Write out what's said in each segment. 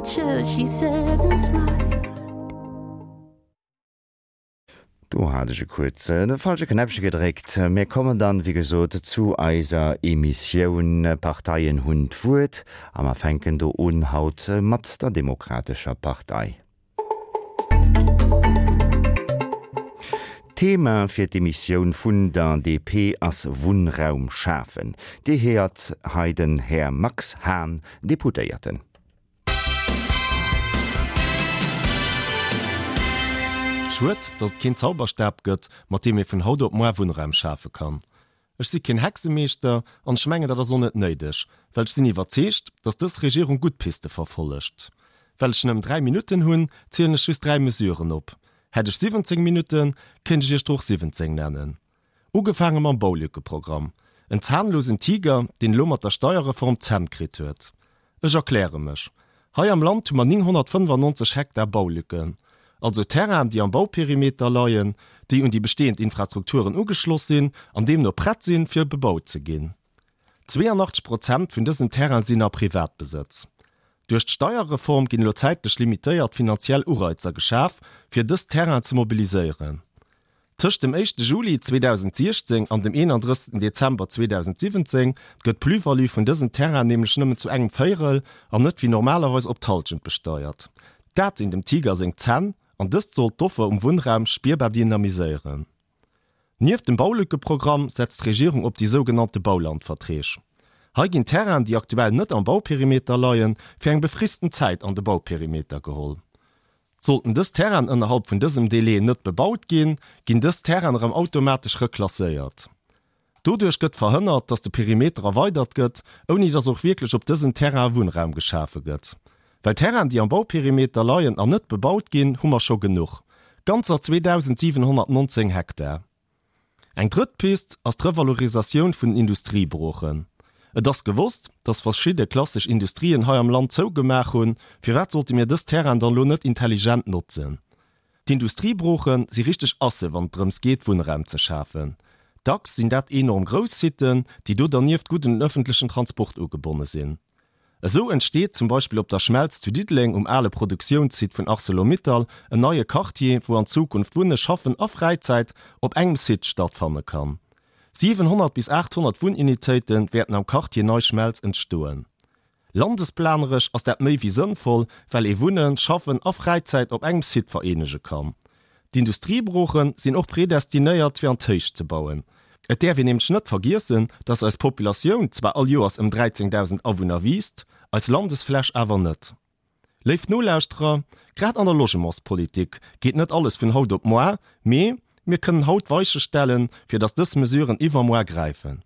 future, she said and smiled. Do hat ech e kuerz de falsche Knäppche gedréckt. Mir kommen dann, wéi gesot, zu eiser Emissioun Parteien hunn d'Wuert a mer fänken do un haut mat der Demokratescher Partei. D'Thema fir d'Emissioun vun der DP ass Wunnraum schafen. Dir héiert hei den Här Max Hahn, Deputéierten. Schued, datt et keen Zauberstab gëtt, mat deem ee vun haut op moar Wunnraum schafe kann. Ech si keen Hexemeeschter an ech mengen, dat ass och net néideg, well ech sinn iwwerzeegt, datt dës Regierung gutt Piste verfollegt. Well ech nëmmen 3 Minutten hunn, zielen ech just 3 Mesuren op. Hätt ech 17 Minutten, kéint ech iech der och 17 nennen. Ugefaange mam Baulückeprogramm. En zahnlosen Tiger, deen elo mat der Steierreform d'Zänn kritt huet. Ech erkläre mech. Hei am Land hu mer 995 Hektar Baulücken, also Terrainen, déi am Bauperimeter leien, déi un déi bestehend Infrastrukturen ugeschloss sinn an deemno prett sinn, fir bebaut ze ginn. 82 Prozent vun dësen Terraine sinn a Privatbesëtz. Duerch d'Steierreform ginn elo zäitlech limitéiert finanziell Ureizer geschaf, fir dës Terrainen ze mobiliséieren. Tëscht dem éischte Juli 2016 an dem 31 Dezember 2017 gëtt d'Plus-value vun dësen Terrainen nämlech nëmmen zu engem Véierel an net wéi normalerweis op d'Hallschent besteiert. Dat sinn dem Tiger seng Zänn an dëst sollt d'Offer um Wunnraum spierbar dynamiséieren. Nieft dem Baulückeprogramm setzt d'Regierung op déi sougenannte Baulandverträg. Hei ginn Terrainen, déi aktuell net am Bauperimeter leien, fir eng befristen Zäit an de Bauperimeter geholl. Sollten dës Terrainen ënnerhalb vun dësem Délai net bebaut ginn, ginn dës Terrainen erëm automatesch reklasséiert. Doduerch gëtt verhënnert, dass de Perimeter erweidert gëtt, ouni dass och wierklech op dësen Terrainen Wunnraum geschafe gëtt. Well Terrainen, déi am Bauperimeter leien an net bebaut ginn, hu mer scho genuch, ganzer 2.719 Hektar. Eng drëtt Pist ass d'Revalorisatioun vun den Industriebroochen. Et ass gewosst, dass verschidde klassesch Industrien hei am Land zougemaach hunn. Firwat sollte mir dës Terrainen dann elo net intelligent notzen? D'Industriebrooche si richteg Asse wann et drëms geet, Wunnraum ze schafen. Dacks sinn dat enorm grouss Siten, déi do dernieft gutt un den ëffentlechen Transport ugebonne sinn. Esou entsteet zum Beispill op der Schmelz zu Diddeleng um ale Produktiounssite vun Arcelor-Mittal en neie Quartier, wou an Zukunft Wunne, Schaffen a Fräizäit op engem Site stattfanne kann. 700 bis 800 Wunnunitéite wäerten am Quartier Nei Schmelz entstoen. Landesplaneresch ass dat méi wéi sënnvoll, well ee Wunnen, Schaffen a Fräizäit op engem Site vereenege kann. D'Industriebrooche sinn och predestinéiert fir an d'Héicht ze bauen. Et däerf een nämlech net vergiessen, dass eis Populatioun zwar all Joers ëm 13.000 Awunner wiisst, eis Landesfläch awer net. Léif Nolauschterer, grad an der Logementspolitik geet net alles vun haut op moar, mee mir kënnen haut d'Weiche stellen, fir dass dës Mesuren iwwermoar gräifen.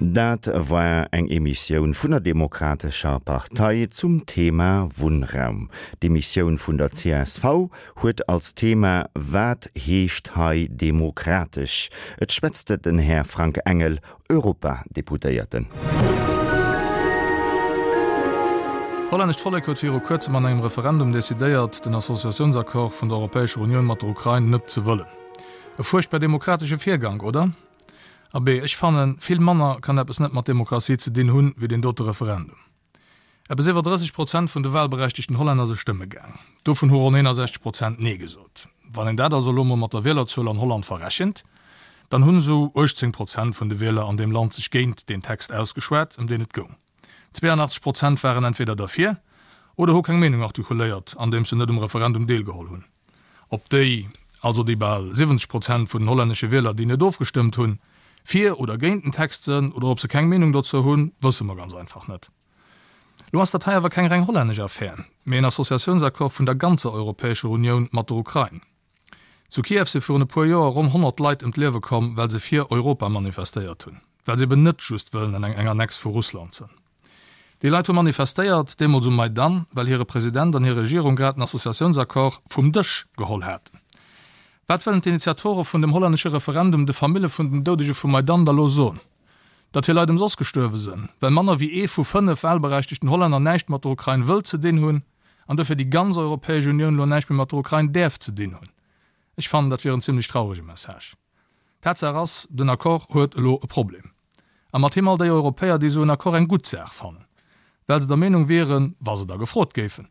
Dat war eng Emissioun vun der Demokratescher Partei zum Thema Wunnraum. D'Emissioun vun der csv huet als Thema Wat heescht hei demokratesch? Et schwätzt den Här Frank Engel, Europadeputéierten. D'hollännescht Vollek huet viru kuerzem an engem Referendum decidéiert, den Associatiounsaccord vun der Europäescher Unioun mat der Ukrain net ze wëllen. E fuerchtbar demokratesche Virgank, oder? Abee, ech fannen, vill manner kann eppes net mat Demokratie ze dinn hunn, wéi deen dote Referendum. Eppes iwwer 30 Prozent vun de wahlberechtegten Hollänner se stëmme gaang. Dovun hu ronn 61 Prozent Nee gesot. Wann een dat also elo mol mat der Wielerzuel an Holland verrechent, dann hunn esou 18 Prozent vun de Wieler an deem Land sech géint deen Text ausgeschwat, ëm deen et goung. 82 Prozent waren entweder derfir oder hu keng Meenung artikuléiert, andeems se net um Referendum deelgeholl hunn. Ob déi, also déi bal 70 Prozent vun den hollännesche Wieler, déi net ofgestëmmt hunn, fir oder géint den Text sënn oder ob se keng Meenung dozou hunn, wësse mer ganz einfach net. Lo ass dat hei awer keng reng hollännesch Affär, mee en Associatiounsaccord vun der ganzer Europäescher Unioun mat der Ukrain. Zu Kiew si virun e puer Joer ronn 100 Leit ëm d'Liewe komm, well se fir Europa manifestéiert hunn, well se eben net just wëllen an eng Annex vu Russland sënn. Déi Leit hu manifestéiert, deemools um Maidan, well hire President an hir Regierung grad den Associatiounsaccord vum Dësch geholl haten. Wat wëllen d'Initiatore vun dem hollännesche Referendum de Famille vun den Doudege vum Maidan da lo soen? Datt hir Leit ëmsoss gestuerwe sënn, well manner wéi ee vu 5 wahlberechtegten Hollänner näischt mat der Ukrain wëllt ze dinn hunn? An dofir déi ganz Europäesch Unioun elo näischt méi mat der Ukrain däerf ze dinn hunn. Ech fannen, dat wier en zimlech traurege Message. Tatsaach ass, den Accord huet elo e Problem. A mat him all déi Europäer, déi esou en Accord eng gutt Saach fannen, well se der Meenung wieren, wa se da gefrot géifen,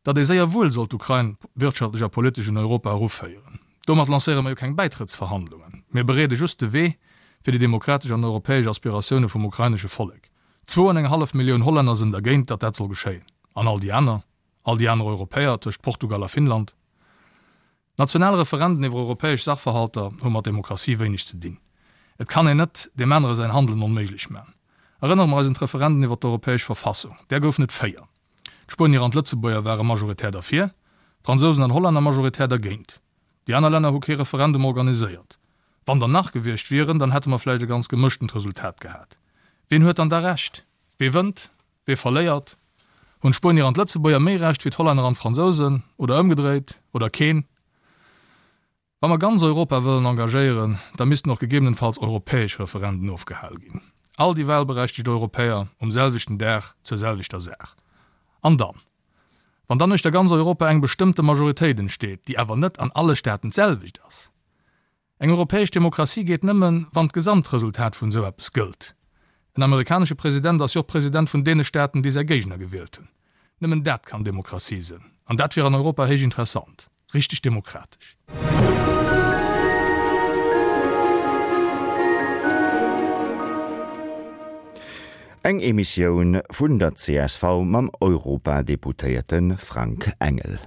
datt ee séier wuel sollt d'Ukrain wirtschaftlech a politesch un Europa eruféieren. Domat lancéiere mer jo keng Bäitrëttsverhandlungen, mir bereede just de Wee fir déi demokratesch an europäesch Aspiratioune vum ukrainesche Vollek. Zwou an eng hallef Millioun Hollänner sënn dergéint, datt dat soll geschéien. An all déi aner? All déi aner Europäer tëscht Portugal a Finnland? National Referenden iwwer europäesch Sachverhalter hu mat Demokratie wéineg ze dinn. Et kann een net deem anere säin Handelen onméiglech man. Erënnere mer eis un d'Referenden iwwer d'europäesch Verfassung. Där goufen et 4. D'Spuenier an d'Lëtzebuerger ware majoritär derfir, d'Fransousen an Hollänner majoritär dergéint. Déi aner Länner hu kee Referendum organiséiert. Wann der nach gewiescht wieren, dann hätte mer vläicht e ganz gemëschtent Resultat gehat. Wien huet dann da Recht? Wee wënnt? Wee verléiert? Hunn d'Spuenier an d'Lëtzebuerger méi Recht wéi d'Hollänner an d'Fransousen? Oder ëmgedréit? Oder keen? Wa mer ganz Europa wëllen engagéieren, da missten och gegebenenfalls europäesch Referenden ofgehal ginn. All déi wahlberechtegt Europäer um selwechten Dag zur selwechter Saach. An dann? Wann dann uechter ganz Europa eng bestëmmte Majoritéit entsteet, déi awer net an alle Staaten d'selwecht ass, Eng europäesch Demokratie geet nëmmen, wann d'Gesamtresultat vun esou eppes gëllt. En amerikanesche President ass jo och President vun deene Staaten, déi säi Géigner gewielt hunn. Nëmmen dat kann Demokratie sënn. An dat wier an Europa héich interessant. Richteg demokratesch. Eng Emissioun vun der csv mam Europadeputéierte Frank Engel.